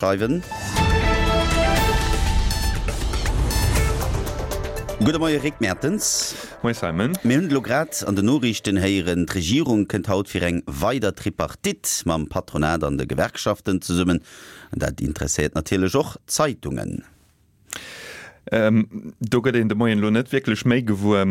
Schreiwen. Gudde Moie Rick Mertens. Moie Simon. Mir hunn et elo grad an den Noriichten héieren, d'Regierung kënnt haut fir eng weider Tripartite mam Patronat an de Gewerkschaften zesummen. An dat interesséiert natierlech och d'Zeitungen. Do gëtt een de Moien elo net wierklech méi gewuer,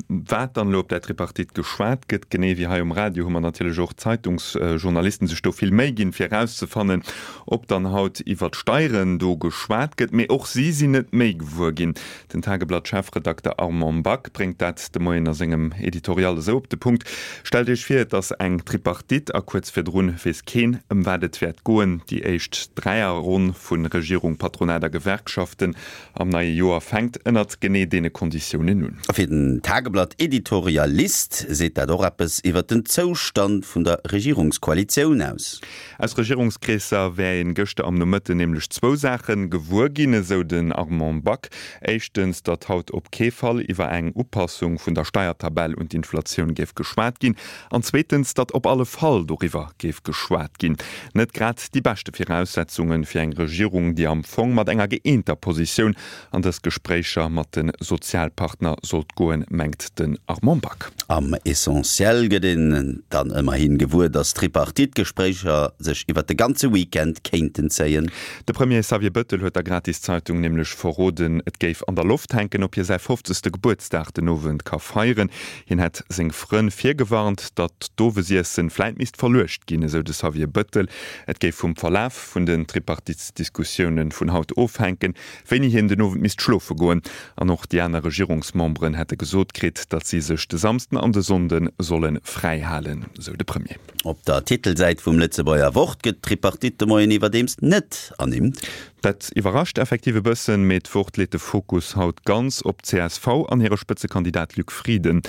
wat dann elo op där Tripartite geschwat gëtt. Genee wéi hei um Radio hu mer natierlech och d'Zeitungsjournalisten sech do vill Méi ginn, fir erauszefannen, ob dann haut iwwer d'Steieren do geschwat gëtt. Mee och si sinn net méi gewuer ginn. Den Tageblatt-Chefredakter Armand Back bréngt dat de Moien a sengem Editorial esou op de Punkt, Stellt Iech vir, et ass eng Tripartite a kuerz virdrun weess keen, ëm wat et wäert goen. Déi éischt Dräierronn vu Regierung, Patronat a Gewerkschaften am neie Joer fänkt ënnert genee deene Konditiounen un. A fir den Tageblatt-Editorialist seet dat och eppes iwwert den Zoustand vun der Regierungskoalitioun aus. Aus Regierungskreesser wär een gëschter am Nomëtten nämlech zwou Saache gewuer ginn, esou den Armand Back. Éischtens, datt haut op kee Fall iwwer eng Upassung vun der Steiertabell un d'Inflatioun géif geschwat ginn. An zweetens, datt op alle Fall doriwwer géif geschwat ginn. Net grad déi beschte Viraussetzunge fir eng Regierung, déi am Fong mat enger gëeenter Positioun an dës Gespréicher mat de Sozialpartner sollt goen, mengt den Armand Back. Am Essentiel gëtt een dann ëmmerhi gewuer, datt d'Tripartite-Gespréicher sech iwwer de ganze Weekend kéinten zéien. De Premier Xavier Bëttel huet der Gratiszeitung nämlech verroden, et géif an der Loft hänken, ob hie säi fofzegste Gebuertsdag den Owend ka feieren. Hien hätt seng Frënn virgewarnt, datt d'Owesiessen vläit misst verluecht ginn, esou de Xavier Bëttel. Et géif vum Verlaf vun den Tripartitsdiskussioune vun haut ofhänken, wéini hien den Owend misst schlofe goen. An och déi aner Regierungsmemberen hätte gesot kritt, datt si sech de Samsden an de Sonnde solle fräi halen, esou de Premier. Op der Titelsäit vum Lëtzebuerger Wort gëtt d'Tripartite de Moien iwwerdeems net ernimmt. Dat iwwerrascht effektiv e bëssen, mee d'Wort leet de Fokus haut ganz op d'CSV an hire Spëtzekandidat Luc Frieden.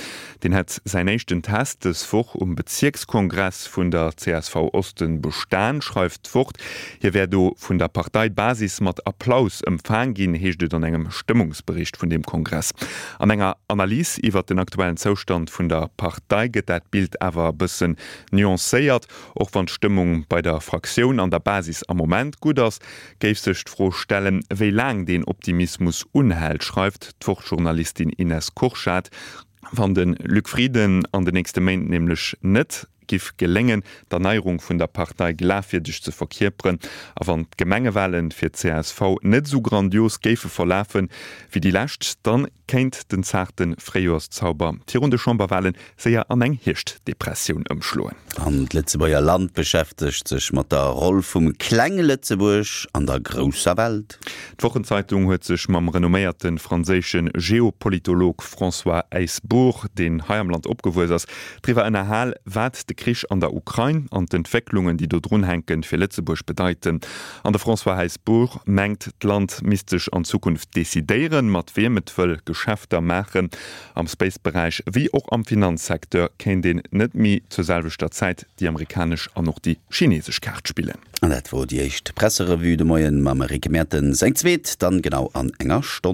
Deen hätt säin éischten Test dës Woch um Bezierkskongress vun der csv Osten bestan, schreift d'Wort. Hie wär do vun der Parteibasis mat Applaus ëmfaang ginn, heescht et an engem Stëmmungsbericht vun deem Kongress. An enger Analys iwwert den aktuellen Zoustand vun der Partei gëtt dat Bild awer e bëssen nuancéiert. Och wann d'Stëmmung bei der Fraktioun an der Basis am Moment gutt ass, géif sech d'Fro stellen, wéi laang deen Optimismus unhält, schreift d'Wort-Journalistin Ines Kurschat. Wann de Luc Frieden an de nächste Méint nämlech net giff geléngen, d'Erneierung vun der Partei glafwierdeg ze verkierperen, a wann d'Gemengewahlen fir d'CSV net esou grandios géife verlafen, wéi déi lescht, dann kéint den zaarte Fréijoerszauber virun de Chamberwahlen séier an eng Hierschtdepressioun ëmschloen. An d'Lëtzebuerger Land beschäftegt sech mat der Roll vum klenge Lëtzebuerg an der grousser Welt. D'Wochenzeitung huet sech mam renomméierte franséische Geopolitolog François Heisbourg, deen hei am Land opgewuess ass, driwwer ënnerhal, wat de Krich an der Ukrain an d'Entwécklungen, déi do drun hänken, fir Lëtzebuerg bedeiten. An de François Heisbourg mengt, d'Land misst sech an Zukunft decidéieren, mat wiem et wëll Geschäfter maachen. Am Space-Beräich wéi och am Finanzsecteur kéint een net méi zur selwechter Zäit déi amerikanesch an och déi chinesesch Kaart spillen. An dat wor déi éischt Presserevue de Moien mam Rick Mertens. Eng zweet dann genau an enger Stonn.